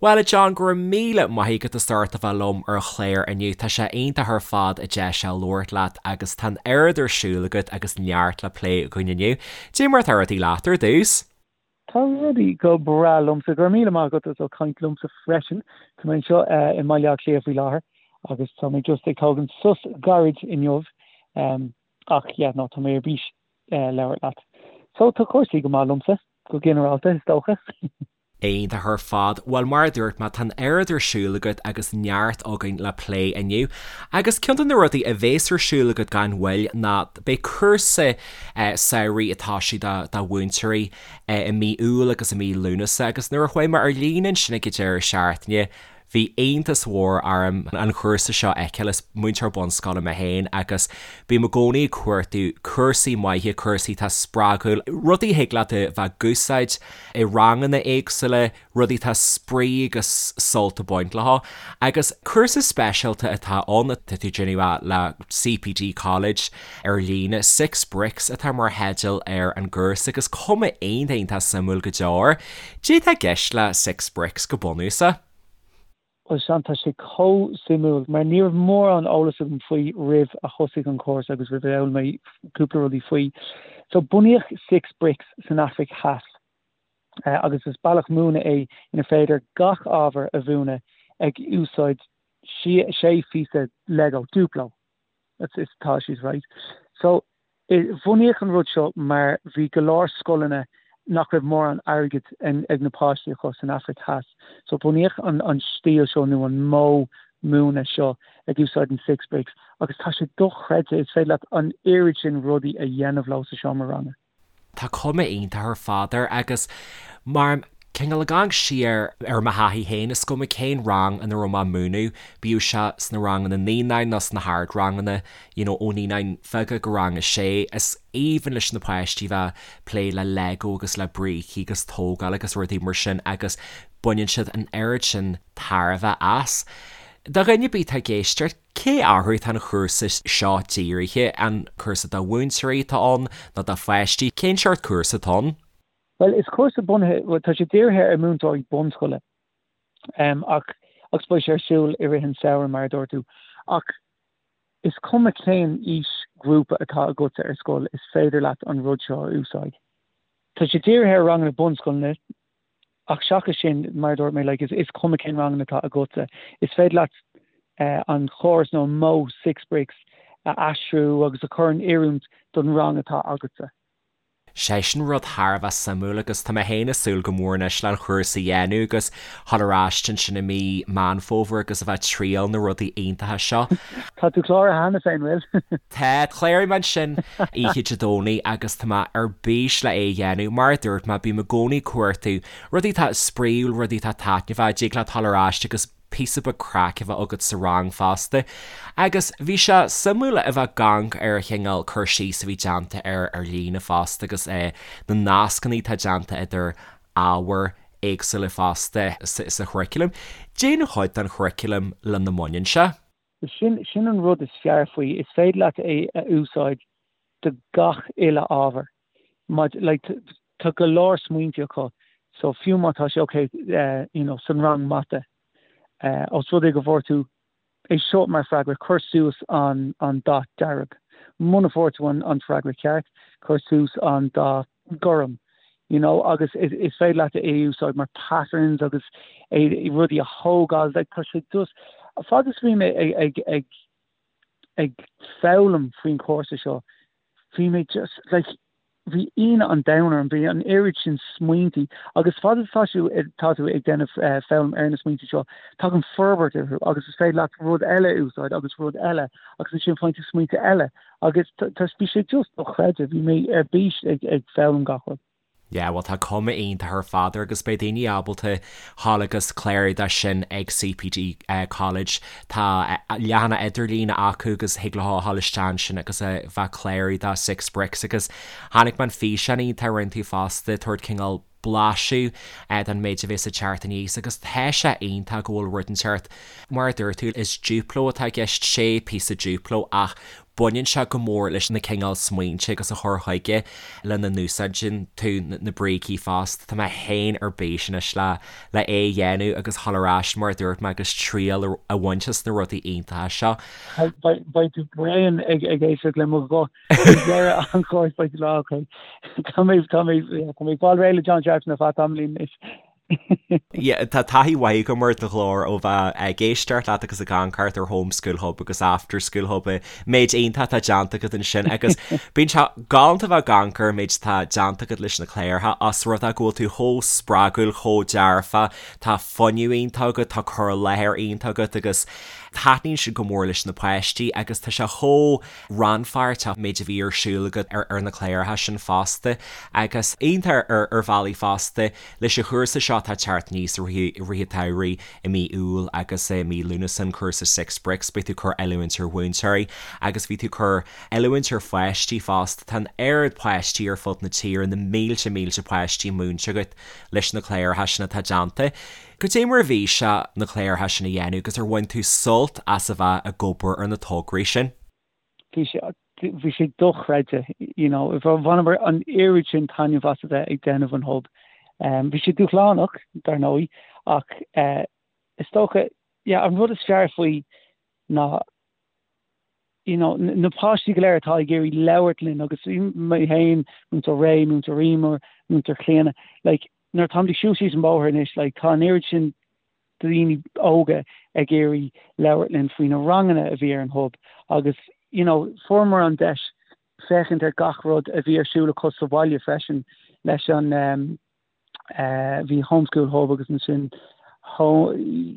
Bhuel, a John, go raibh míle maith agat as ucht a bheith liom ar an chlár inniu. Tá sé iontach ar fad an deis seo labhairt leat agus tá an oiread ar siúl agat agus neart le plé againn inniu. Dé mar atá rudaí leat ar dtús? Tá rudaí go breá liomsa. Go raibh míle maith agat as ucht caint liomsa freisin. Tá mé anseo i mBaile Átha Cliath faoi láthair agus tá mé just ag tógaint sos gairid inniu. Ach yeah, no, tá mé ar bís labhairt leat. So tá cúrsaí go maith liomsa, go ginearálta, is dócha. Iontach ar fad. Bhuel, mar a dúirt mé, tá an oiread ar siúl agat agus neart againn le plé inniu. Agus ceann de na rudaí a bhéas ar siúl agat gan mhoill ná beidh cúrsa samhraidh ag toiseacht do mhúinteoirí i mí Iúil agus i mí Lúnasa agus nuair a chuaigh mé ar líne ansin ag an deireadh seachtaine, Bhí iontas mhór orm an chúrsa seo a fheiceáil. Is múinteoir bunscoile mé féin agus bím i gcónaí ag cuartú cúrsaí maithe, cúrsaí atá spreagúil, rudaí a thig leat a bheith ag úsáid i ranganna éagsúla, rudaí atá spraoi agus sult ag baint leo. Agus cúrsa speisialta atá ann, tá tú ag déanamh le CPD College ar líne, Six Bricks atá mar theideal ar an gcúrsa agus cuma iontach iontach suimiúil go deo air. Cad é atá i gceist le Six Bricks go bunúsach? Bhuel Seán, tá sé chomh suimiúil mar ní raibh mórán eolas agam faoi roimh a thosaigh an cúrsa agus roimh a d'fhoghlaim mé cúpla rudaí faoi. So bunaíodh Six Bricks san Afraic Theas agus is bealach múineadh é inar féidir gach ábhar a mhúineadh ag úsáid sé phíosa Lego, Duplo. That's atá siad right. So bunaíodh an rud seo mar bhí go leor scoileanna nach raibh mórán airgid ag na páistí acu san Afraic Theas. So bunaíodh an an stíl seo nó an modh múineadh seo ag úsáid an six bricks agus tá sé dochreidte, is féidir leat an oiread sin rudaí a dhéanamh leo sa seomra ranga. Tá cuma iontach ar fad air agus mar cineál ag amharc siar ar mo thaithí féin, is cuma cén rang ina raibh mé ag múineadh, bíodh sé sna ranganna naíonáin nó sna hardranganna, you know, ó naíonáin bheaga go rang a sé, is aoibhinn leis na páistí bheith ag plé le Lego agus le brící agus tógáil agus rudaí mar sin agus baineann siad an oiread sin tairbhe as. Do dhuine ar bith atá ag éisteacht, Cé orthu atá an chúrsa seo dírithe? An cúrsa do mhúinteoirí atá ann nó do pháistí? Cén seort cúrsa atá ann? Bhuel, is cúrsa bunaithe, bhuel, tá sé dírithe ar mhúinteoirí bunscoile, ach, agus beidh sé ar siúl i rith an samhradh, mar a dúirt tú, ach is cuma cén aoisghrúpa atá agatsa ar scoil, is féidir leat an rud seo a úsáid. Tá sé dírithe ar ranganna bunscoileanna, Ach seachas sin, mar a dúirt mé, like, is cuma cén ranganna atá agatsa, is féidir leat an chóras nó an modh Six Bricks a aistriú agus a chur in oiriúint don rang atá agatsa. Sé sin rud thar a bheith suimiúil agus tá mé féin ag súil go mór anois le an chúrsa a dhéanamh agus dhul ar ais ansin i mí Meán Fómhair agus a bheith ag triail na rudaí iontacha seo. Tá tú cláraithe cheana féin, bhfuil? Tá, chláraigh mé ansin oíche Dé Domhnaigh agus tá mé ar bís le é a dhéanamh. Mar a dúirt mé, bím i gcónaí ag cuartú rudaí atá spraíúil, rudaí atá taitneamhach, dtig leat dul ar ais agus píosa beag craic a bheith agat sa rang fosta. Agus bhí sé suimiúil a bheith ag amharc ar an chineál cur síos a bhí déanta air ar líne fosta agus na nascanna atá déanta idir ábhair éagsúla fosta sa churaclam. Cén chuid den churaclam lena mbaineann sé. Sin, sin an rud is fearr faoi, is féidir leat é a úsáid do gach uile ábhar. Maidir, like, tá go leor smaointe acu, so fiú má tá sé ok, you know, san rang mata, os rud é go bhfuair tú é seo mar freagra, cuir suas an, an dath dearg. Muna bhfuair tú an, an freagra ceart, cuir suas an dath gorm, you know, agus is, is féidir leat é a úsáid mar patterns agus é, rudaí a thógáil, like, tá sé just, fad is a bhí mé ag, ag, ag, ag foghlaim faoin chúrsa seo, bhí mé just, like, bhí ionadh an domhain orm, bhí an oiread sin smaointí agus fad is atá tú, tá tú ag déanamh foghlaim ar na smaointí seo, tagann forbairt orthu agus is féidir leat rud eile a úsáid agus rud eile agus ansin faigheann tú smaointe eile agus tá, bhí sé just dochreidte, bhí mé ar bís ag, ag foghlaim gach rud. Yeah, bhuel tá cuma iontach ar fad air agus beidh daoine ábalta dhul agus clárú dó sin ag CPD College. Tá leathanach idirlíne acu agus thig leo a dhul isteach ansin agus a bheith ag clárú do Six Bricks agus chonaic mé an físeán iontach a rinne tú fosta, tabhairt cineál blaiseadh den méid a bhéas ag teacht aníos agus tá sé iontach go bhfuil rud inteacht, mar a dúirt tú, is Duplo atá i gceist, sé píosa Duplo ach. Baineann sé go mór leis na cineál smaointe agus a chur chuige lena n-úsáideann tú na brící fosta. Tá mé féin ar bís anois le le é a dhéanamh agus dhul ar ais mar a dúirt mé agus triail a bhaint as na rudaí iontacha seo. Beidh tú bréan ag éisteacht le mo ghuth ag deireadh an chúrsa beidh tú lá ok. Tá mé tá mé tá mé ag fáil réidh le John Sharpson ar feadh tamaillín anois. Yeah, tá taithí mhaith agam ar do ghlór ó bheith ag éisteacht leat agus ag amharc thart ar Home School Hub agus After School Hub, méid iontach atá déanta agat ansin agus bíonn sé galánta bheith ag amharc ar an méid atá déanta agat leis na cláracha os rud é go bhfuil tú chomh spreagúil, chomh dearfa, tá fuinneamh iontach agat, tá cur i láthair iontach agat agus taitníonn sin go mór leis na páistí agus tá sé chomh rannpháirteach méid a bhí ar siúl agat ar na cláracha sin fosta agus iontach ar bhealaí fosta leis an chúrsa seo atá ag teacht aníos i rith an tsamhraidh i mí Iúil agus i mí Lúnasa an cúrsa Six Bricks beidh tú ag cur oiliúint ar mhúinteoirí agus bhí tú ag cur oiliúint ar pháistí fosta tá an oiread páistí ar fud na tíre na mílte mílte páistí múinte agat leis na cláracha sin atá déanta. Goidé mar a bhí sé na cláracha sin a dhéanamh agus ar bhain tú sult as a bheith ag obair ar na tograí sin? Bhí sé, bhí sé dochreidte, you know, bhaineamar an oiread sin taitneamh as a bheith ag déanamh an Hub. Bhí sé dúshlánach, dar ndóigh, ach is dócha, yeah, an rud is fearr faoi ná, you know, na páistí go léir atá ag iarraidh labhairt linn agus mé féin, Múinteoir Ray, Múinteoir Emer, Múinteoir Clíona, like, nuair atáimid ag siúl síos an bóthar anois, like, tá an oiread sin daoine óga ag iarraidh labhairt linn faoi na ranganna a bhí ar an Hub agus, you know, fuaireamar an deis féachaint ar gach rud a bhí ar siúl acu sa bhaile freisin leis an, um, bhí Home School Hub agus ansin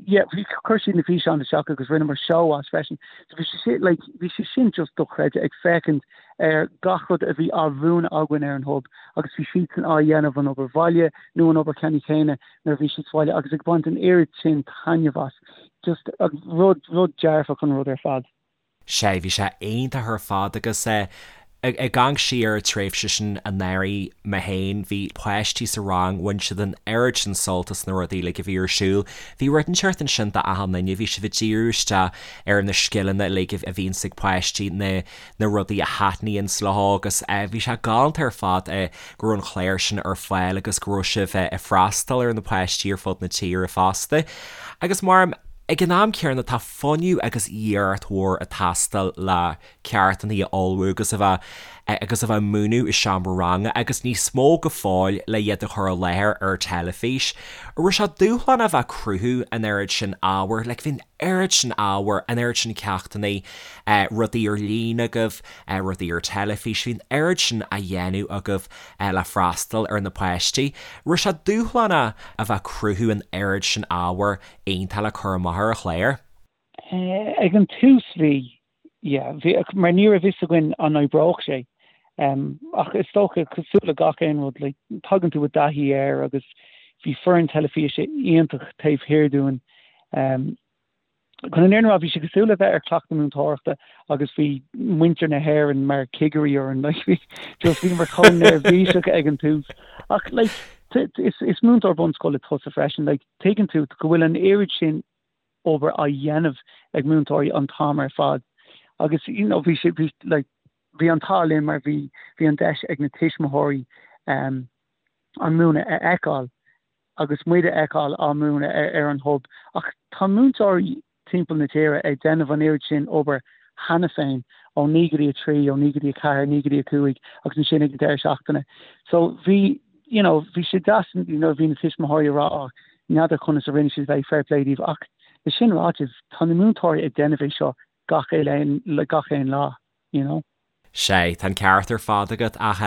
yeah, bhí chuir siad na físeáin isteach agus rinneamar seó as freisin. So bhí sé sin, like, bhí sé sin just dochreidte ag féachaint ar gach rud a bhí á mhúineadh againn ar an Hub agus bhí siadsan á dhéanamh an obair bhaile nó an obair cheana chéanna nuair a bhí siad sa bhaile agus ag baint an oiread sin taitneamh as. Just rud, rud dearfach an rud ar fad. Sea, bhí sé iontach ar fad agus ag amharc siar ar an tréimhse sin anuraidh mé féin, bhí páistí sa rang, bhain siad an oiread sin sult as na rudaí uilig a bhí ar siúl. Bhí rud inteacht ansin d'achan duine, bhí sibh ag díriú isteach ar na scileanna uilig a bhíonns ag páistí, na na rudaí a thaitníonns leo agus bhí sé galánta ar fad go raibh an clár sin ar fáil agus go raibh sibh ag freastal ar na páistí ar fud na tíre fosta. Agus mar ag an am céanna tá fuinneamh agus iarracht mhór ag teastáil le ceachtanna a ullmhú agus a bheith agus a bheith ag múineadh i seomra ranga agus níos mó go fóill le iad a chur i láthair ar teilifís. An raibh sé dúshlánach a bheith ag cruthú an oiread sin ábhair, like bhí an oiread sin ábhair, an oiread sin ceachtanna, rudaí ar líne agaibh, rudaí ar teilifís, bhí an oiread sin á dhéanamh agaibh le freastal ar na páistí. An raibh sé dúshlánach a bheith ag cruthú an oiread sin ábhair iontach le cur amach ar an chlár. Ag an tús bhí, yeah, bhí, mar ní raibh fhios againn an oibreodh sé. Ach is dócha, cosúil le gach aon rud, like, tagann tú i dtaithí air agus bhí foireann teilifíse iontach taobh thiar dúinn. Chun an fhírinne a rá, bhí sé cosúil le bheith ar chleachtadh múinteoireachta agus bhí muintir na hÉireann mar chigirí orainn, like, bhí, just bhíomar chomh neirbhíseach ag an tús. Ach, like, is, is múinteoir bunscoile tusa freisin, like, Tuigeann tú go bhfuil an oiread sin obair á dhéanamh ag múinteoirí an t-am ar fad agus you know bhí sé bhí like bhí an t-ádh linn mar bhí bhí an deis ag na tuismitheoirí um, an múineadh a fheiceáil agus muid a fheiceáil á múineadh ar, ar an hub ach tá múinteoirí timpeall na tíre ag déanamh an oiread sin obair cheana féin, ó 9 go dtí 3, ó 9 go dtí 4, 9 go dtí 5 agus ansin ag an deireadh seachtaine. So bhí, you know, bhí sé deas nuair a bhí na tuismitheoirí ag rá oh, n'fheadar conas a rinne siad é, fair play daoibh ach le sin ráite, tá na múinteoirí ag déanamh é seo gach aon, gach aon lá, you know. Sea, tá an ceart ar fad agat, ach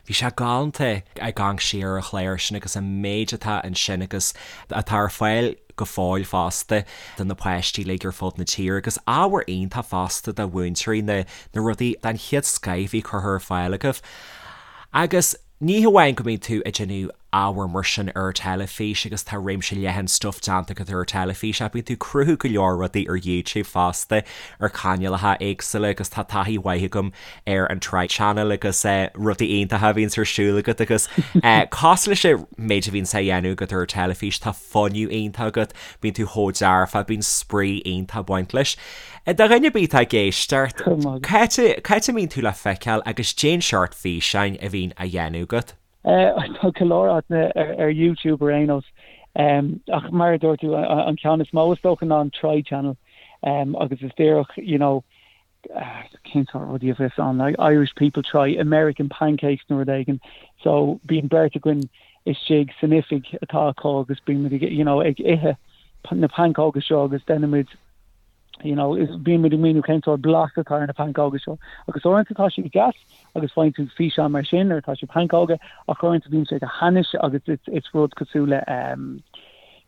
bhí sé galánta ag amharc siar ar an chlár sin agus an méid atá ansin agus atá ar fáil go fóill fosta do na páistí uilig ar fud na tíre agus ábhar iontach fosta do mhúinteoirí, na na rudaí den chéad scoith a bhí curtha ar fáil agaibh. Agus ní hamháin go mbíonn tú ag déanamh. ábhar mar sin ar teilifís agus tá réimse leathan stuif déanta agat ar teilifís ach bíonn tú ag cruthú go leor rudaí ar YouTube fosta ar chainéalacha éagsúla agus tá taithí mhaith agam ar an Try Channel agus rudaí iontacha a bhíonns ar siúl agat agus cosúil leis an méid a bhíonns á dhéanamh agat ar teilifís tá fuinneamh iontach agat, bíonn tú chomh dearfa, bíonn spraoi iontach ag baint leis. Do dhuine ar bith atá ag éisteacht, cá háit a mbíonn tú le feiceáil agus cén seort físeáin a bhíonn á dhéanamh agat? Tá go leor áiteanna ar YouTube ar aon nós. Ach mar a dúirt tú, an ceann is mó is dócha ná an Try Channel agus is díreach, you know, cén sórt rudaí a bheas ann, like Irish people try American pancakes nó rud éigin. So bíonn beirt againn istigh san oifig atá acu agus bíonn muid ag, you know, ag ithe na pancóga seo agus déanaimid, you know, bíonn muid ag míniú cén sórt blas atá ar na pancóga seo. Agus uaireanta tá siad deas agus faigheann tú físeán mar sin nuair atá siad pancóga ach uaireanta bíonn sé go hainnis agus it's, it's rud cosúil le um,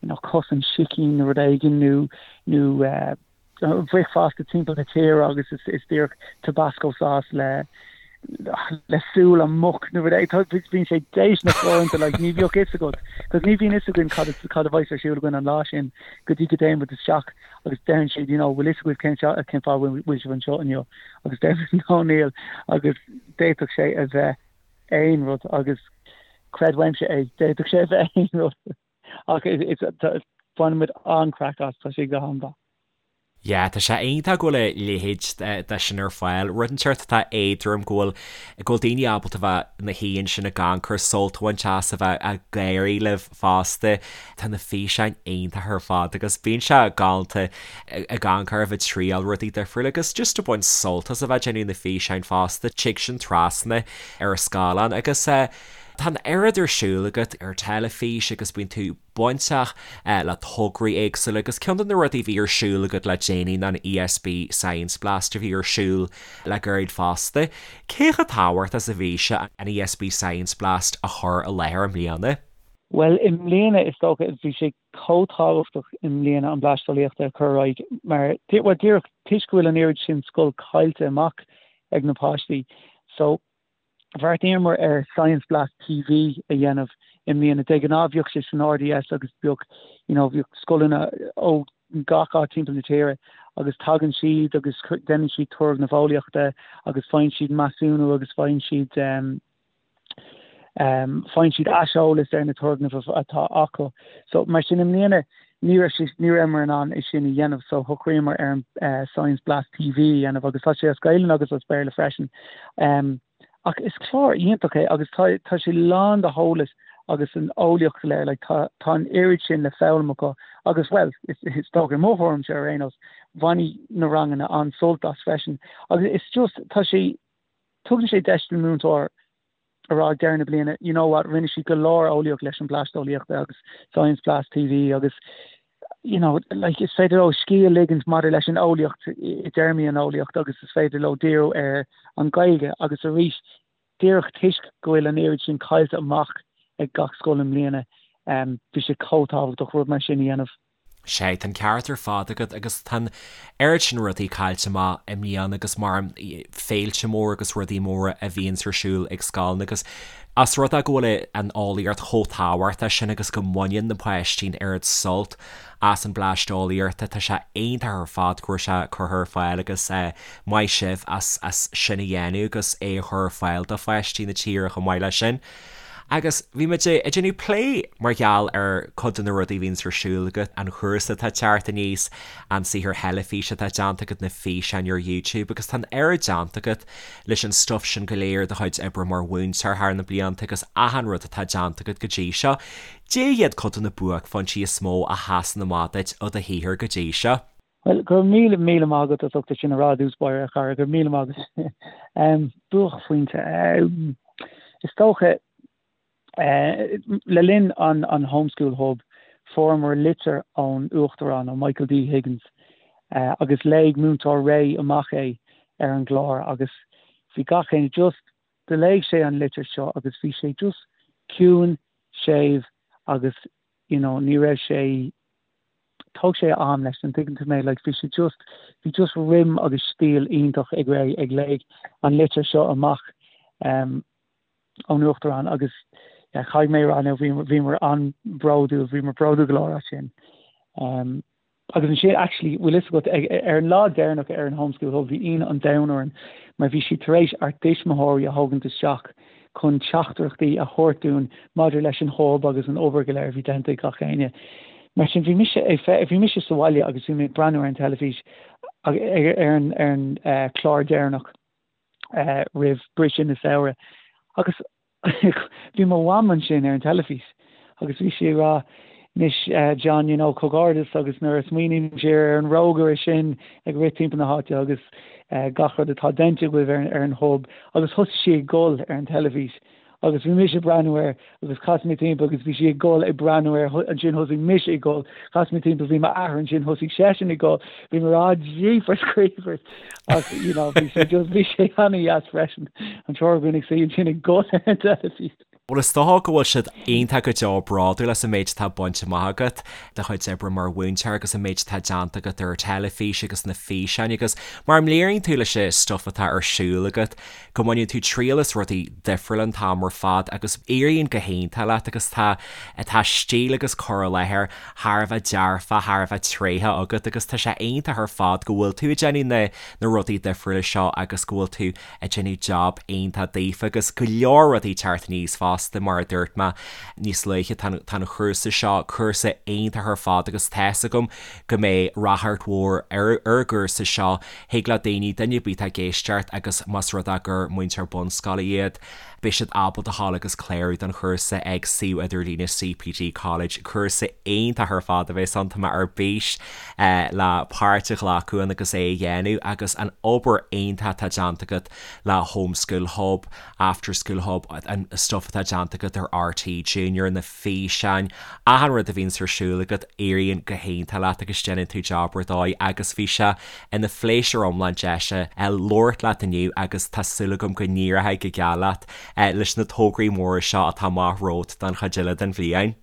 you know, cos an sicín nó rud éigin nó, nó uh, bhricfeasta timpeall na tíre agus is díreach Tabasco sauce le le súil an muc nó rud éigin. Bíonn sé déistineach uaireanta like ní bheadh fhios agat cos ní bhíonn fhios againn cad cad a bheas ar siúl againn an lá sin go dtí go dtéann muid isteach agus deireann siad you know bhfuil fhios agaibh cén cén fáth bhfuil sibh anseo inniu agus deir muid no níl agus d'fhéadfadh sé a bheith aon rud agus creid uaimse é d'fhéadfadh sé a bheith aon rud. Ach baineann muid an-craic as, tá sé go han-mhaith. Yeah, tá sé iontach go bhfuil a leithéid de sin ar fáil. Rud inteacht atá éadrom go bhfuil, go bhfuil daoine ábalta bheith ina shuí ansin ag amharc ar sult a bhaint as, a bheith ag gáirí libh fosta. Tá na físeáin iontach ar fad agus bíonn sé galánta ag amharc oraibh ag triail rudaí difriúla agus just ag baint sult as a bheith ag déanamh na físeáin fosta. Tig sin trasna ar an scáileán agus eh, Tá an oiread ar siúl agat ar teilifís agus bíonn tú bainteach le tograí éagsúla agus ceann de na rudaí a bhí ar siúl agat le déanaí ná an ESB Science Blast a bhí ar siúl le gairid fosta. Cé chomh tábhachtach is a bhí sé an ESB Science Blast a chur i láthair i mbliana? Bhuel, i mbliana is dócha bhí sé chomh tábhachtach i mbliana an Bleaist Eolaíochta a chur ar aghaidh mar, bhuel díreach toisc go bhfuil an oiread sin scoil caillte amach ag na páistí. So, Bheartaíomar ar Science Blast TV a dhéanamh i mbliana. De ghnáth bhíodh sé san RDS agus bhíodh you know bhíodh scoileanna ó gach áit timpeall na tíre agus tagann siad agus déanann siad turgnaimh eolaíochta agus faigheann siad measúnú agus faigheann siad um, um, faigheann siad aiseolas ar na turgnaimh atá acu. So mar sin i mbliana ní raibh sé ní rabhamar in ann é sin a dhéanamh so shocraíomar ar an eh, Science Blast TV a dhéanamh agus tá sé as Gaelainn agus as Béarla freisin. Um, ach is clár iontach é agus tá, tá sé lán de heolas agus an eolaíocht go léir, like, tá, tá an oiread sin le foghlaim acu agus well, is, is dócha i mo thuairimse ar aon nós, bhainfidh na ranganna an-sult as freisin. Agus it's just, tá sé, tugann sé deis don múinteoir a rá ag deireadh na bliana, you know what, rinne siad go leor eolaíocht leis an Bleaist Eolaíochta agus Science Blast TV agus you know, like, is féidir leo scíth a ligint maidir leis an eolaíocht i dtéarmaí an eolaíocht agus is féidir leo díriú ar an Ghaeilge agus arís díreach toisc go bhfuil an oiread sin caillte amach ag gach scoil i mbliana, um, bhí sé chomh tábhachtach rud mar sin a dhéanamh. Sea, tá an ceart ar fad agat agus tá an oiread sin rudaí caillte amach i mbliana agus mar féilte móra agus rudaí móra a bhíonns ar siúl ag scoileanna agus as rud é go bhfuil an eolaíocht chomh tábhachtach sin agus go mbaineann na páistí an oiread sult as an Bleaist Eolaíochta, tá sé iontach ar fad go raibh sé curtha ar fáil agus maith sibh as as sin a dhéanamh agus é a chur ar fáil do pháistí na tíre chomh maith leis sin. Agus bhí muid ag déanamh plé mar gheall ar cuid de na rudaí a bhíonns ar siúl agat, an chúrsa atá ag teacht aníos, an saothar theilifíse atá déanta agat, na físeáin ar YouTube agus tá an oiread déanta agat leis an stuif sin go léir, do chuid oibre mar mhúinteoir thar na blianta agus achan rud atá déanta agat go dtí seo. Cad iad cuid de na buaicphointí is mó a sheasann amach duit i do shaothar go dtí seo? Bhuel, go raibh míle, míle maith agat as ucht é sin a rá i dtús báire, a chara, go raibh míle maith agat. Buaicphointe. Is dócha, le linn an an Homeschool Hub, fuaireamar litir ón Uachtarán, ó Michael D. Higgins, agus léigh Múinteoir Ray amach é ar an gclár agus bhí gach éinne just, do léigh sé an litir seo agus bhí sé just ciúin, séimh agus you know ní raibh sé, thóg sé a am leis, an dtuigeann tú mé, like bhí sé just, bhí just rithim agus stíl iontach ag Ray ag léigh an litir seo amach um, ón Uachtarán agus yeah, caithfidh mé a rá now bhíomar an-bhródúil, bhíomar bródúil go leor as sin. Um, Agus ansin, actually, bhfuil fhios agat, ar an lá deireanach ar an Home School Hub, bhí ionadh an domhain orainn mar bhí siad tar éis ár dtuismitheoirí a thógaint isteach chun teachtaireachtaí a thabhairt dúinn maidir leis an hub agus an obair go léir a bhí déanta ag gach éinne. Mar sin, bhí mise ag, bhí mise sa bhaile agus bhí mé ag breathnú ar an teilifís ar an, ar an chlár deireanach roimh briseadh na samhradh agus Bhí mo mham ansin ar an teilifís agus bhí sí ag rá, Anois John, you know, comhghairdeas agus nuair a smaoiním siar ar an rógaire sin ag rith timpeall na háite agus gach rud atá déanta agaibh ar an hub agus thosaigh sí ag gol ar an teilifís agus bhí mise ag breathnú air agus chas mé timpeall agus bhí sí ag gol ag breathnú air ansin thosaigh mise ag gol, chas mé timpeall bhí m'athair ansin thosaigh seisean ag gol, bhí mé ag rá jeepers creepers ach you know bhí sé just bhí sé an-dheas freisin an triúr againn ag suí ansin ag gol ar an teilifís. Bhuel is dócha go bhfuil siad iontach go deo bródúil as an méid atá bainte amach agat, do chuid oibre mar mhúinteoir agus an méid atá déanta agat ar an teilifís agus na físeáin agus mar a léiríonn tú leis an stuif atá ar siúl agat go mbaineann tú triail as rudaí difriúla an t-am ar fad agus éiríonn go hiontach leat agus tá tá stíl agus cur i láthair thar a bheith dearfa, thar a bheith tréitheach agat agus tá sé iontach ar fad go bhfuil tú ag déanamh na na rudaí difriúla seo agus go bhfuil tú ag déanamh job iontach daofa agus go leor rudaí ag teacht aníos fosta mar a dúirt mé níos luaithe tá tá an chúrsa seo, cúrsa iontach ar fad agus tá's agam go mbeidh ráchairt mhór ar ar an gcúrsa seo Thig le daoine, duine ar bith atá ag éisteacht agus más rud é gur múinteoir bunscoile iad, beidh siad ábalta a ghabháil agus clárú don chúrsa ag suíomh idirlíne CPD College. Cúrsa iontach ar fad a bheas ann, tá mé ar bís le páirt a ghlacadh ann agus é a dhéanamh agus an obair iontach atá déanta agat le Home School Hub, After School Hub, an stuff atá déanta agat ar RTÉ Junior, na físeáin, achan rud a bhíonns ar siúl agat, éiríonn go hiontach leat agus déanann tú job ar dóigh agus bhí sé ina phléisiúr iomlán deis labhairt leat inniu agus tá súil agam go n-éireoidh go geal leat leis na tograí móra seo atá amach romhat don chuid eile den bhliain.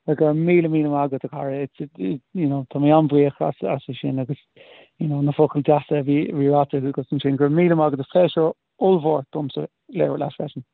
Go raibh míle míle maith agat a chara, it's you know tá mé an-bhuíoch as as sin agus you know na focail deasa a bhí ráite agat ansin. Go raibh míle maith agat, is pléisiúr ollmhór domsa labhairt leat freisin.